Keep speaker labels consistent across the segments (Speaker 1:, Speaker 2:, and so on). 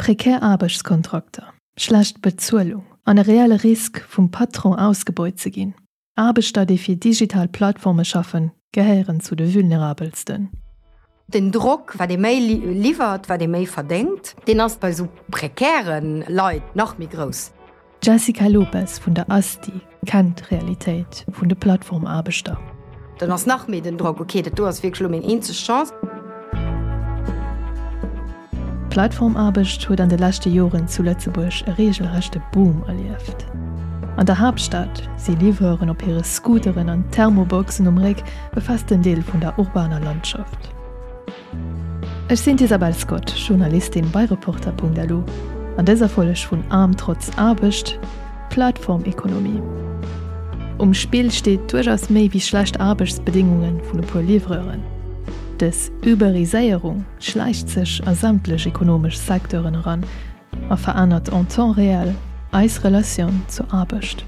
Speaker 1: Prekär Aarbechtskontrakter, schlecht Bezuelung an e reelle Risk, vum Patron ausgebeut ze ginn. Aarbechter, déi fir digital Plattforme schaffen, gehéieren zu de vulnerabelsten.
Speaker 2: Den Drock, wat ee méi liwwert, wat ee méi verdéngt, deen ass bei esou prekäre Leit nach méi grouss.
Speaker 1: D'Jessica Lopes vun der ASTI kennt d'Realitéit vun de Plattformaarbechter.
Speaker 2: Dann ass nach méi den Drock, ok, dat do ass wierklech elo meng eenzeg Chance.
Speaker 1: D'Plattformaarbecht huet an de leschte Joren zu Lëtzebuerg e reegelrechte Boom erlieft. An der Haaptstad si Livreuren op hire Scooteren an Thermoboxen um Réck e festen Deel vun der urbaner Landschaft. Ech sinn d'Isabel Scott, Journalistin bei Reporter.lu. An dëser Folg vun Aarm trotz Aarbecht, Plattformekonomie. Um Spill steet duerchaus méi wéi schlecht Aarbechtsbedéngunge vun e puer Livreuren. Dës Uberiséierung schläicht sech a sämtlech ekonomesch Secteuren eran a verännert en temps réel eis Relatioun zur Aarbecht.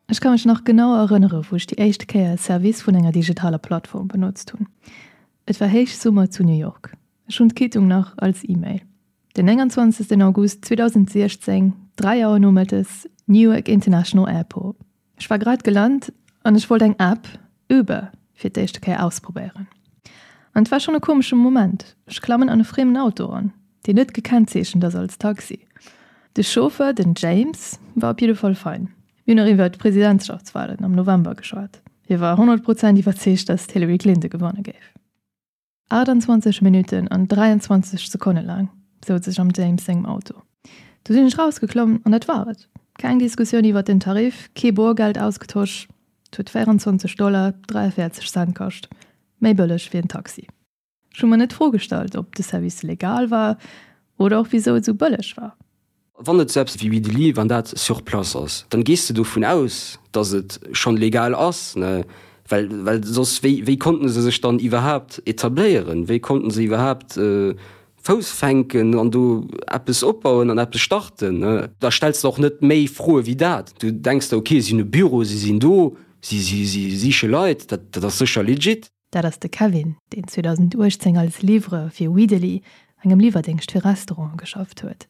Speaker 1: Ech ka mech nach genau erënnere wou ech déi éischt Kéier e Service vun enger digitaler Plattform benotzt hunn. Et war Héichsummer zu New York. Ech hunn d'Quittung nach als E-Mail. Den 29 August 2016, 3 Auer nomëttes, Newark International Airport. Ech war grad gelant an ech wollt eng App, Uber, fir d'éischte Kéier ausprobéieren. An et war schonn e komesche Moment, ech klammen an e friemen Auto eran, deen net gekennzeechent ass als Taxi. De Chauffeur, den James, war op jidde Fall fein. Mir hunn nach iwwer d'Presidentschaftswalen am November geschwat. Hie war 100 Prozent iwwerzeegt, datt d'Hillary Clinton gewanne géif. 28 Minutten an 23 Sekonne laang souz ech am James sengem Auto. Du sinn ech rausgeklommen an dat war et. Keng Diskussioun iwwert den Tarif, kee Borgeld ausgetosch. Et huet 24 Dollar 43 Cent kascht, méi bëlleg wéi en Taxi. Ech hu mer net d'Fro gestallt, ob de Service legal war oder och wisou et esou bëlleg war.
Speaker 3: Wann et sou eppes wéi Widely, wann dat sur place ass, dann gees de dovun aus, dass et schonn legal ass, ne? Well, well soss, wéi, wéi konnten se sech dann iwwerhaapt etabléieren? Wéi konnten se iwwerhaapt Fouss fänken an do eppes opbauen an eppes starten, ne? Da stells de och net méi Froe wéi dat. Du denks der, okay, si hunn e Büro, si sinn do, si, si, si siche Leit, dat, dat ass sécher legit.
Speaker 1: Dat ass de Kevin, deen 2018 als Livreur fir Weedeli, engem Liwwerdéngscht fir Restauranten, geschafft huet.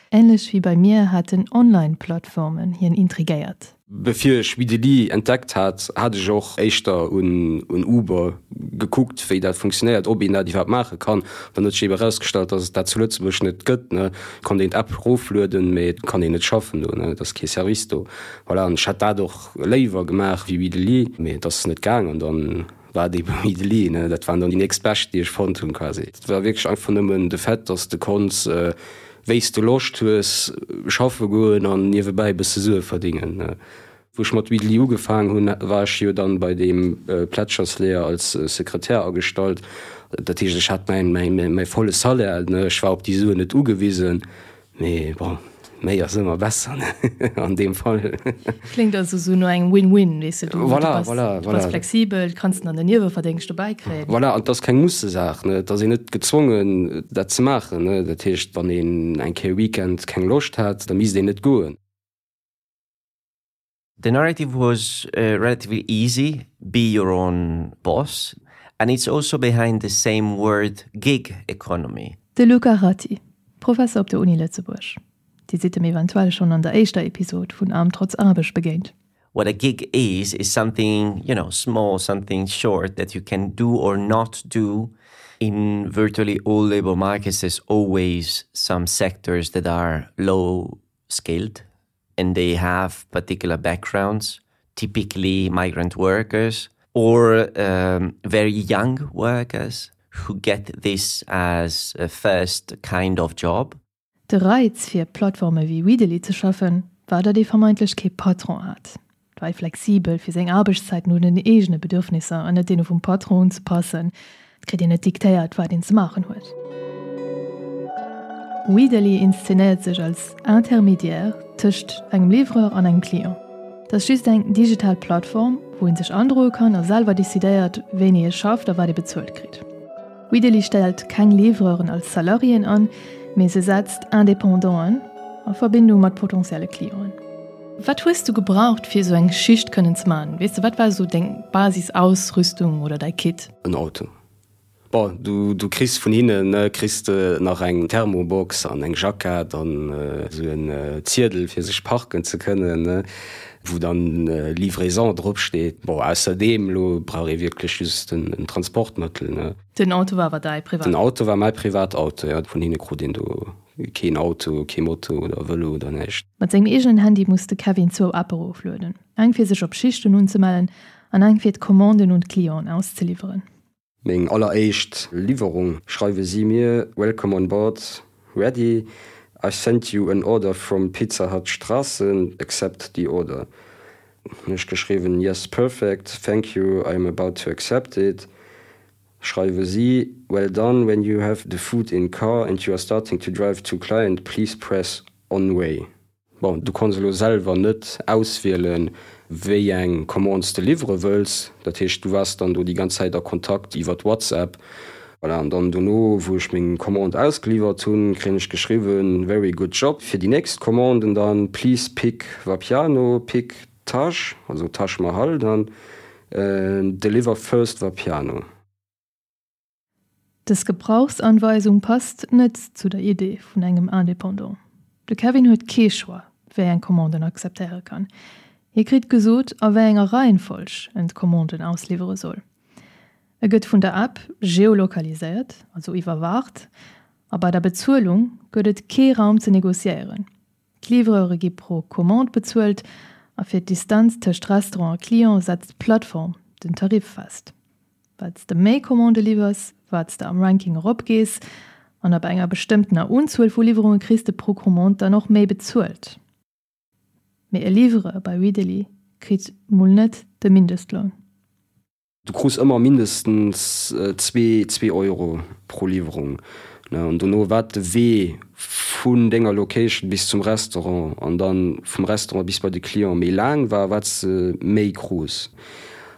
Speaker 1: Änlech wéi bei mir haten Online-Plattformen hien intrigéiert.
Speaker 3: Bevir ech Weedeli entdeckt hat, hat ech och éischter un Uber gekuckt, wéi dat funktionéiert, ob een dat iwwerhaapt maache kann. Dann huet sech ebe erausgestallt, dass et dat zu Lëtzebuerg net gëtt. Et konnt een d'App eroflueden, mee et kann een net schaffen do, et ass kee Service do. Voilà, an ech hätt dat och léiwer gemaach wéi Weedeli, mee et ass net gaang an dann war et ebe Weedeli, ne. Dat waren dann déi nächst bescht, déi ech fonnt hunn quasi. Et war wierklech einfach nëmmen de Fait, dass de konns, wéi s de Loscht hues, schaffe goen an niewebäi e bësse Sue verdingen, ne. Wou ech mat Weedeli ugefaang hunn, war ech jo dann bei deem Plätschersleeër als Sekretär agestallt. Dat heescht, ech hat mäin, mäin, mäi volle Salaire, ne. Ech war op déi Suen net ugewisen. Mee bon, méi ass ëmmer besser, ne, an deem Fall.
Speaker 1: Kléngt also sou no engem Win-Win, weess de, du,
Speaker 3: voilà,
Speaker 1: du bass,
Speaker 3: voilà,
Speaker 1: du bass
Speaker 3: voilà.
Speaker 1: flexibel, kanns dann den Nieweverdéngscht dobäi kréien.
Speaker 3: Voilà, an et ass keng Mussesaach, ne, et ass een net gezwongen, dat ze maachen, ne. Dat heescht, wann een eng Kéier Weekend keng Loscht hat, da misst een net goen.
Speaker 4: The narrative was uh, relatively easy be your own boss. And it's also behind the same word gig economy.
Speaker 1: De Luca Ratti, Professer op der Uni Lëtzebuerg. Dir sidd em eventuell schonn an der éischter Episod vun Arm trotz Aarbecht begéint.
Speaker 4: What a gig is is something you know small, something short that you can do or not do in virtually all labor markets there's always some sectors that are low skilled and they have particular backgrounds, typically migrant workers or um, very young workers who get this as a first kind of job.
Speaker 1: De Reiz fir Plattforme wéi Weedeli ze schaffen, war datt ee vermeintlech kee Patron hat. Et war ee flexibel fir seng Aarbechtszäiten un den eegene Bedürfnisser an net deene vum Patron unzepassen. Et kritt een net diktéiert, wat een ze maachen huet. Weedeli inszenéiert sech als Intermédiaire tëscht engem Livreur an engem Client. Et ass just eng digital Plattform, wou ee sech androe kann a selwer decidéiert, wéini ee schafft a wat ee bezuelt kritt. Weedeli stellt keng Livreuren als Salariéen an, mee se setzt Independanten a Verbindung mat potentielle Clienten. Wat hues du gebraucht fir esou eng Schicht kënnen ze man? Weess de, wat war esou deng Basisausrüstung oder däi Kit?
Speaker 3: En Auto. Bon, du, du kriss vun hinnen kriss de nach eng Thermobox an eng Jackett an esou en Ziedel fir sech parken ze kënnen, wou dann Livraison drop steet. Bon, ausserdeem elo brauch ee wierklech just en Transportmëttel, ne.
Speaker 1: Den Auto war awer däi
Speaker 3: privat? Den Auto war mäi privat Auto, jo. Vun hinne krut een do keen Auto, kee Moto oder Vëlo oder näischt.
Speaker 1: Mat sengem eegenen Handy muss de Kevin zwou Appe eroflueden, eng fir sech op Schichten unzemellen an eng fir d'Commanden un d'Clienten auszeliwweren.
Speaker 3: Meng alleréischt Liwwerung schreiwe si mir, Welcome on board, ready, I sent you an order from Pizza Hut Strassen, accept the order. Hunn ech geschriwwen, Yes perfect, thank you, I am about to accept it. Schreiwe si, Well done, when you have the food in car and you are starting to drive to client, please press on way. Bon, du kanns elo selwer net auswielen, wéi eng Commande s de liwwere wëlls. Dat heescht, du waars dann do déi ganz Zäit a Kontakt iwwert WhatsApp. Voilà, an dann dono, wou ech meng Commande ausgeliwwert hunn, kréien ech geschriwwen, Very good job. Fir déi nächst Commanden dann, Please pick Vapiano, pick Taj, also Taj Mahal dann, deliver first Vapiano.
Speaker 1: Dës Gebrauchsanweisung passt net zu der Idee vun engem Indépendant. De Kevin huet kee Choix, wéi eng Commande en akzeptéiere kann. Hie kritt gesot, a wéi enger Reihenfolg en d'Commanden ausliwwere soll. E gëtt vun der App geolokaliséiert, also iwwerwaacht, a bei der Bezuelung gëtt et kee Raum ze negociéieren. D'Livreure gi pro Commande bezuelt a fir d'Distanz tëscht Restaurant a Client setzt d'Plattform den Tarif fest. Wat s de méi Commandë liwwers, wat s de am Ranking eropgees an ab enger bestëmmtener Unzuel vu Liwwerunge kriss de pro Commande dann och méi bezuelt. Mee e Livreur bei Weedeli kritt mol net de Mindestloun.
Speaker 3: Du krus ëmmer mindestens zwee, zwee Euro pro Liwwerung, ne? An dono wat de Wee vun denger Location bis zum Restaurant an dann vum Restaurant bis bei de Client méi laang war, wat s de méi krus.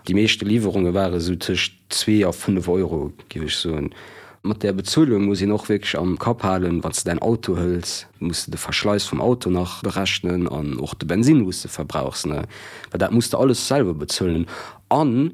Speaker 3: Déi meeschte Liwwerunge ware sou tëscht zwee a fënnef Euro, géif ech soen. Mat där Bezuelung muss een och wierklech am Kapp halen, wann s de däin Auto hëls, muss de de Verschleiss vum Auto nach berechnen an och de Bensinn, wou s de verbrauchs, ne? Well dat muss de alles selwer bezuelen. An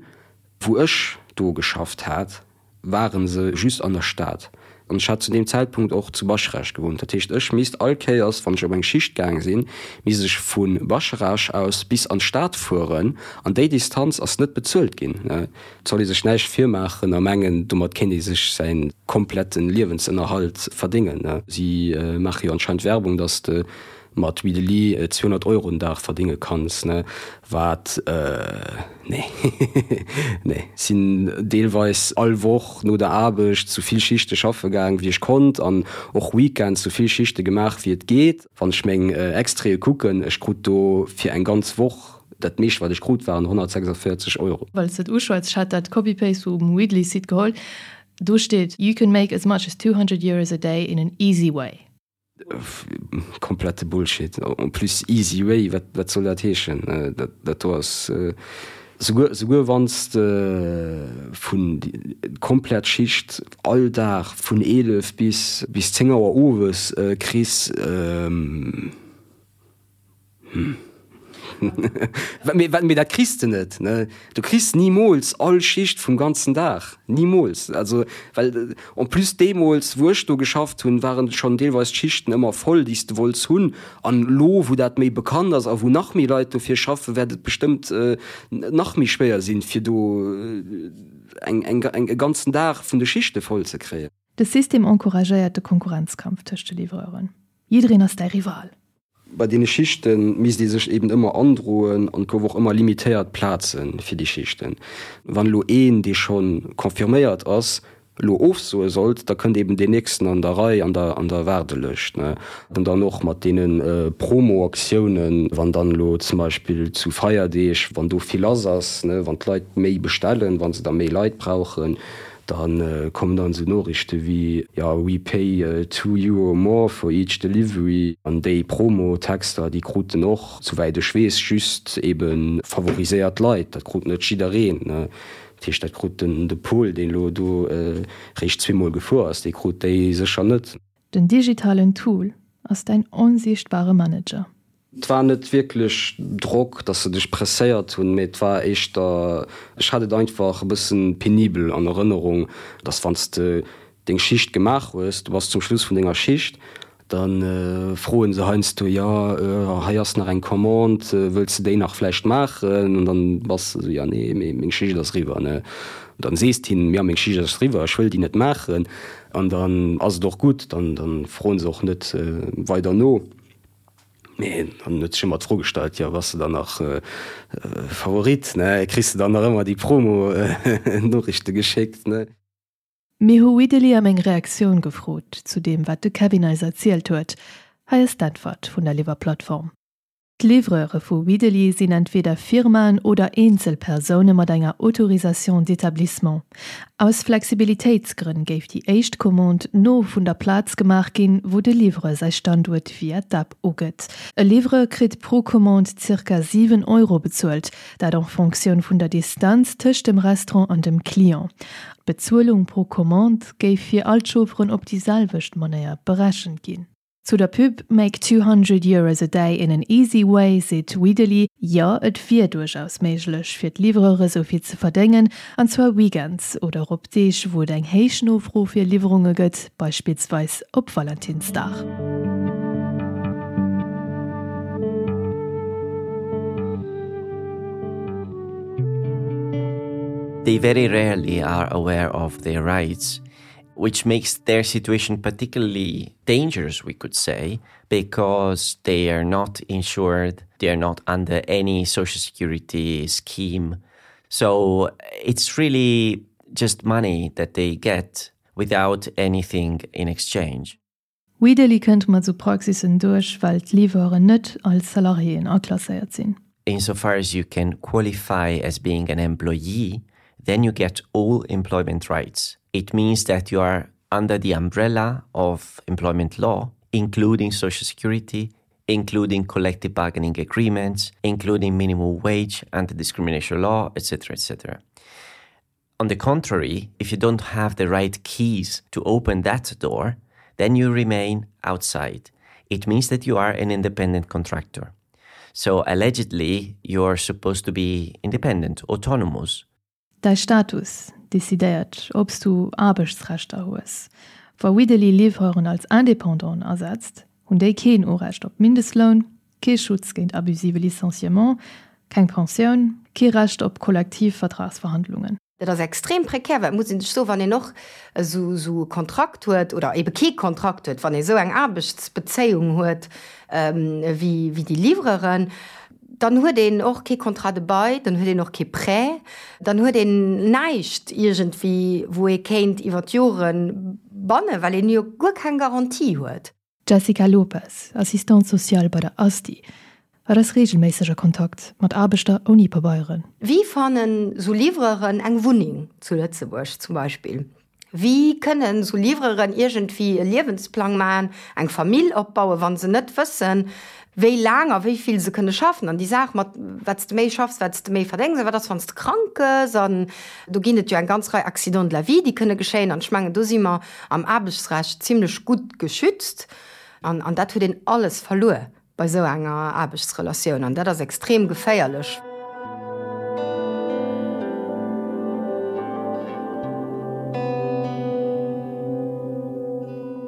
Speaker 3: wou ech do geschafft hat, ware se just an der Stad. An ech hat zu deem Zäitpunkt och zu Bascharage gewunnt. Dat heescht, ech misst all Kéiers, wann ech op eng Schicht gaang sinn, misst ech vu Bascharage aus bis an d'Stad fueren. An déi Distanz ass net bezuelt ginn. Et soll ee sech näischt virmaachen a mengen, domat kéint ee sech säi komplette Liewensënnerhalt verdéngen. Si maache jo anscheinend Werbung, datt de mat Weedeli 200 Euro den Dag verdinge kanns, ne, wat, nee, nee. Sinn deelweis all Woch no der Aarbecht sou vill Schichte schaffe gaang wéi ech konnt an och Weekends sou vill Schichte gemaach wéi et geet. Wann ech meng Extraite kucken, ech krut do fir eng ganz Woch, dat meescht wat ech krut waren 146 Euro.
Speaker 1: Well s de et uschwätz, ech hat dat Copy-Paste vum Weedly-Site geholl, do steet, You can make as much as 200 Euros a day in an easy way.
Speaker 3: Komplette Bullshit. En plus easy way, wat wat soll dat heeschen? Dat do ass souguer souguer wann s de vun komplett Schicht all Dag vun 11 bis bis 10 Auer owes kriss. Hm. Mee mee dat kriss de net, ne? Du kriss nimools all Schicht vum ganzen Dag. Nimools. Also, well en plus deemools, wou ech do geschafft hunn, waren schonn deelweis d'Schichten ëmmer voll, déi s de wollts hunn. An elo, wou dat méi bekannt ass a wou nach méi Leit dofir schaffen, wäert et bestëmmt nach méi schwéier sinn, fir do eng eng eng e ganzen Dag vun de Schichte voll ze kréien.
Speaker 1: De System encouragéiert de Konkurrenzkampf tëscht de Livreuren. Jiddereen ass däi Rival.
Speaker 3: Bei deene Schichte misst ee sech eben ëmmer androen an et gouf och ëmmer limitéiert Plaze fir déi Schichten. Wann elo een, dee scho confirméiert ass, elo ofsoe sollt, da kënnt eben deen nächsten an der Rei, an der an der Waardelëscht. An dann och mat deene Promo-Aktiounen, wann dann elo zum Beispill zu Feierdeeg, wann do vill lass ass, wann d'Leit méi bestellen, wa se da méi Leit brauchen, Da kommen dann esou Noriichte wéi, jo, we pay two euro more for each delivery. An déi Promo-Texter, déi kruten och, souwäit ech weess, just ebe favoriséiert Leit. Dat krut net jiddereen. Dat heescht, dat krut den de Paul, deen elo do réischt zweemol gefuer ass, dee krut déi sécher net.
Speaker 1: Den digitalen Tool ass däin onsiichtbare Manager.
Speaker 3: Et war net wierklech Drock, dass se dech presséiert hunn, mee et war éischter, ech hat et einfach e bëssen penibel an Erënnerung, dass wann s de deng Schicht gemaach hues, du bass zum Schluss vun denger Schicht, da froen se heiansdo, jo hei ass nach eng Commande, wëlls de déi nach vläicht maachen? An dann bass de esou, jo nee, mee meng Schicht ass eriwwer, ne. Dann sees de hinnen, jo meng Schicht ass eriwwer, ech wëll déi net maachen. An dann ass et och gutt, dann froen se och net weider no. Mee dann huet sech ëmmer d'Fro gestallt, jo bass de dann nach Favorit, ne? Kriss de dann nach ëmmer déi Promo-Noriichte geschéckt, ne?
Speaker 1: Mir hu Widdeli ëm eng Reaktioun gefrot zu deem, wat de Kevin eis erzielt huet. Hei ass d'Äntwert vun der Liwwerplattform. D'Livreure vu Widdeli sinn entweder Firmaen oder Eenzelpersoune mat enger Autorisation d'établissement. Aus Flexibilitéitsgrënn géif déi éischt Commande no vun der Plaz gemaach ginn, wou de Livreur säi Standuert via d'App ugëtt. E Livreur kritt pro Commande zirka 7 Euro bezuelt, dat en Fonctioun vun der Distanz tëscht dem Restaurant an dem Client. D'Bezuelung pro Commande géif fir all d'Chaufferen op déi selwecht Manéier berechent ginn. Zu der Pub Make 200 Euros a day in an easy way seet Widdeli, jo, et wier duerchaus méiglech fir d'Livreure sou vill ze verdéngen, an zwar weekends oder och op Deeg, wou et eng héich Nofro fir Liwwerunge gëtt, beispillsweis op Valentinsdag.
Speaker 4: They very rarely are aware of their rights. which makes their situation particularly dangerous, we could say, because they are not insured, they are not under any social security scheme. So it's really just money that they get without anything in exchange.
Speaker 1: Widely kënnt mat sou Praxissen duerch, well d'Livreuren net als Salariéen aklasséiert sinn.
Speaker 4: Insofar as you can qualify as being an employee, then you get all employment rights. It means that you are under the umbrella of employment law, including social security, including collective bargaining agreements, including minimum wage, anti-discrimination law, etc., etc. On the contrary, if you don't have the right keys to open that door, then you remain outside. It means that you are an independent contractor. So allegedly, you are supposed to be independent, autonomous.
Speaker 1: Däi Status decidéiert, ob s du Aarbechtsrechter hues. Wa Widdeli Livreuren als Indépendanten asetzt, hunn déi keen Urecht op Mindestloun, kee Schutz géint abusive Licenciement, keng Pensioun, kee Recht op Kollektivvertragsverhandlungen.
Speaker 2: Dat ass extrem prekär, well et muss ee sech soen, wann een och esou esou e Kontrakt huet oder ebe kee Kontrakt huet, wann ee esou eng Aarbechtsbezéiung huet wéi wéi déi Livreuren, dann huet een och kee Contrat de bail, dann huet een och kee Prêt, dann huet een näischt iergendwéi, wou ee kéint iwwer d'Jore bannen, well een jo guer keng Garantie huet.
Speaker 1: D'Jessica Lopes, Assistante sociale bei der ASTI, hat ass reegelméisseg a Kontakt mat Aarbechter ouni Pabeieren.
Speaker 2: Wéi fannen sou Livreuren eng Wunneng zu Lëtzebuerg zum Beispill? Wéi kënnen sou Livreuren iergendwéi e Liewensplang maachen, eng Famill opbauen, wa se net wëssen, wéi laang a wéi vill se kënne schaffen? An déi Saach mat wat s de méi schaffs, wat s de méi verdéngs, a wat ass, wann s de krank gëss? An do ginn et jo eng ganz Rei Accidents de la vie, déi kënne geschéien. An ech mengen, do si mer am Aarbechtsrecht zimlech gutt geschützt an an dat huet een alles verluer bei esou enger Aarbechtsrelatioun an dat ass extrem geféierlech.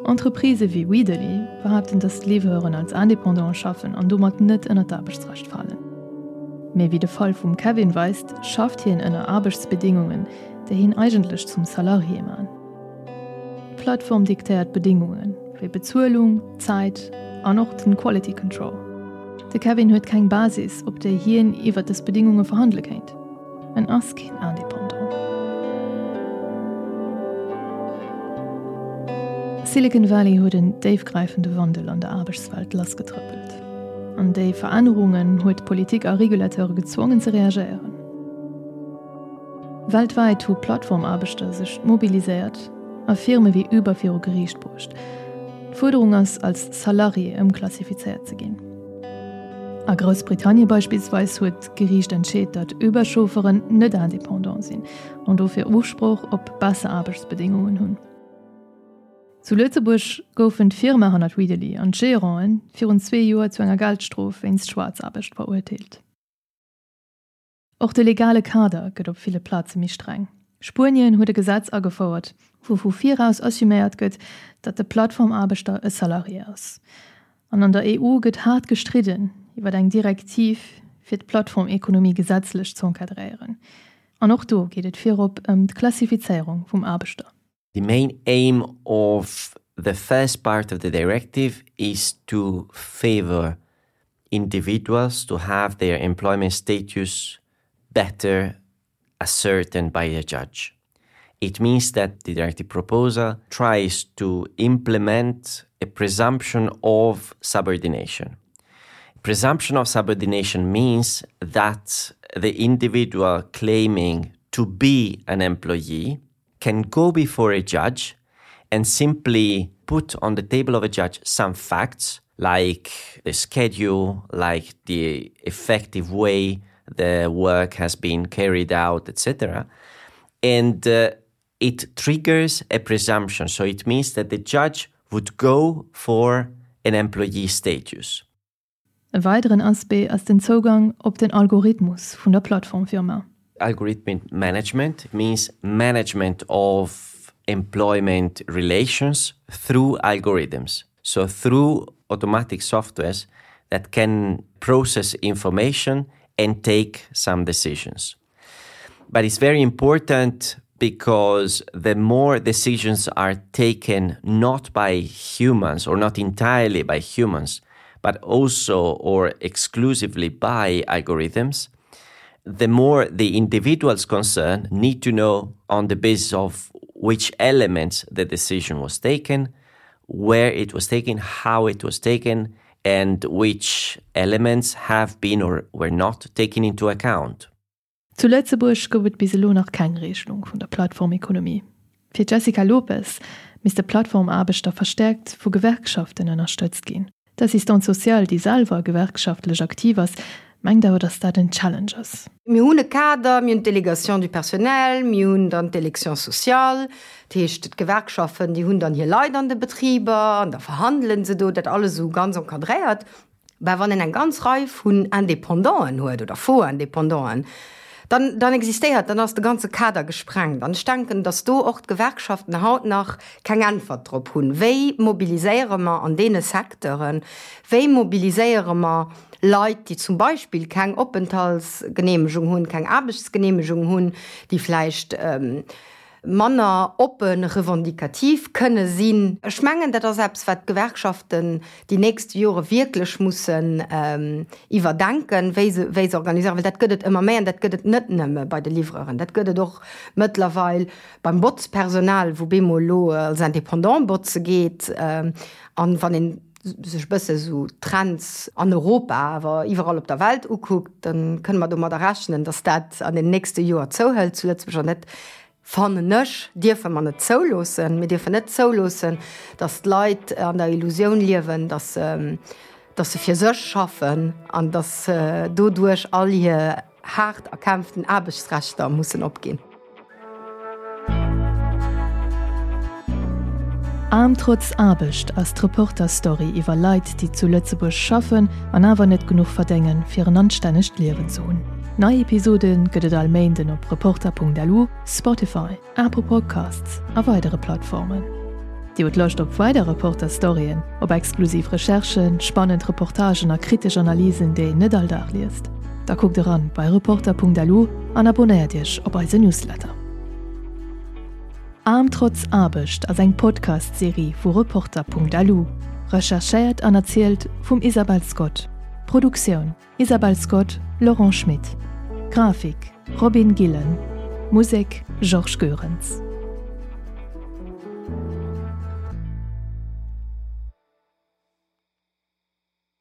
Speaker 1: Entreprisë wéi Weederly behaapten, datt d'Livreuren als Indépendante schaffen an domat net ënner d'Aarbechtsrecht falen. Mee wéi de Fall vum Kevin weist, schafft hien ënner Aarbechtsbedingungen, déi hien eigentlech zum Salarié man. D'Plattform diktéiert d'Bedingungen, wéi Bezuelung, Zäit an och den Quality Control. De Kevin huet keng Basis, op déi hien iwwer dës Bedingunge verhandele kéint. En ass keen Indépendant. Silicon Valley huet en déifgräifende Wandel an der Aarbechtswelt lassgetrëppelt. An déi Verännerungen huet d'Politik a Regulateure gezwongen ze reagéieren. Weltwäit hu Plattformaarbechter sech mobiliséiert a Firme wéi Uber viru Geriicht bruecht. D'Fuerderung ass, als Salarié ëmklassifizéiert ze ginn. A Groussbritannie beispillsweis huet d'Geriicht entscheet, datt Uber-Chaufferen net indépendant sinn an dofir Usproch op besser Aarbechtsbedéngungen hunn. Zu Lëtzebuerg goufen d'Firma hannert Weedeli an d'Geranten virun zwee Joer zu enger Geldstrof wéinst Schwaarzaarbecht verurteelt. Och de legale Kader gëtt op ville Plaze méi streng. Spuenien huet e Gesetz agefouert, wou vu viraus assuméiert gëtt, datt de Plattformaarbechter e Salarié ass. An an der EU gëtt haart gestridden iwwer eng Direktiv, fir d'Plattformekonomie gesetzlech z'encadréieren. An och do geet et virop ëm d'Klassifizéierung vum Aarbechter.
Speaker 4: The main aim of the first part of the directive is to favor individuals to have their employment status better ascertained by a judge. It means that the directive proposal tries to implement a presumption of subordination. Presumption of subordination means that the individual claiming to be an employee can go before a judge and simply put on the table of a judge some facts like the schedule, like the effective way the work has been carried out, etc. And uh, it triggers a presumption. So it means that the judge would go for an employee status.
Speaker 1: E weideren Aspect ass den Zougang op den Algorithmus vun der Plattformfirma.
Speaker 4: Algorithmic management means management of employment relations through algorithms. So through automatic softwares that can process information and take some decisions. But it's very important because the more decisions are taken not by humans or not entirely by humans, but also or exclusively by algorithms, the more the individuals concerned need to know on the basis of which elements the decision was taken, where it was taken, how it was taken, and which elements have been or were not taken into account.
Speaker 1: Zu Lëtzebuerg gouf et bis elo nach keng Reegelung vun der Plattformekonomie. Fir d'Jessica Lopes misste Plattformaarbechter verstäerkt vu Gewerkschaften ënnerstëtzt ginn. D'Assistante sociale, déi selwer gewerkschaftlech aktiv ass, mengt awer, datt dat en Challenge ass.
Speaker 2: Mir hunn e Kader, mir hunn d'Délégation du personnel, mir hunn dann d'Élection sociale, dat heescht d'Gewerkschaften, déi hunn dann hir Leit an de Betriber an da verhandele se do, dat alles esou ganz encadréiert. Mä wann een eng ganz Rei vun Indépendanten huet oder Faux-Indépendanten, dann, dann existéiert, dann ass de ganze Kader gesprengt. An ech denken, datt do och d'Gewerkschaften haut nach keng Äntwert drop hunn. Wéi mobiliséiere mer an deene Secteuren, wéi mobiliséiere mer Leit, déi zum Beispill keng Openthaltsgeneemegung hunn, keng Aarbechtsgeneemegung hunn, déi vläicht manner oppe revendikativ kënne sinn. Ech mengen, dat ass eppes, wat d'Gewerkschaften déi nächst Jore wierklech mussen iwwerdenken, wéi se, wéi se organiséieren, well dat gëtt et ëmmer méi an dat gëtt et net nëmme bei de Livreuren, dat gëtt et och mëttlerweil beim Botzpersonal, wou bemol elo als Indépendant botze geet. An wann een sech e bësse sou d'Trends an Europa, awer iwwerall op der Welt ukuckt, da kënne mer domadder rechnen, datt dat an den nächste Joer zouhëlt zu Lëtzebuerg. An dat, fannen ech, dierfe mer net zouloossen. Mir dierfen net zouloossen, datt d'Leit an der Illusioun liewen, datt se, datt se fir sech schaffen an datt se doduerch all hir haart erkämpften Aarbechtsrechter mussen opginn.
Speaker 1: Aarm trotz Aarbecht ass d'Reporter-Story iwwer Leit, déi zu Lëtzebuerg schaffen an awer net genuch verdéngen, fir en anstännegt Liewen ze hunn. Nei Episode gëtt et all Méinden op Reporter.lu, Spotify, Apple Podcasts a weidere Plattformen. Dir hutt Loscht op weider Reporter-Storyen, op exklusiv Recherchen, spannend Reportagen a kritesch Analysen, déi een net all Dag liest? Da kuckt eran bei Reporter.lu an abonnéiert Iech op eise Newsletter. Aarm trotz Aarbecht ass eng Podcast-Serie vu Reporter.lu, recherchéiert an erzielt vum Isabel Scott. Produktioun, Isabel Scott, Laurent Schmit. Grafik, Robin Gillen. Musek, Georges Goerens.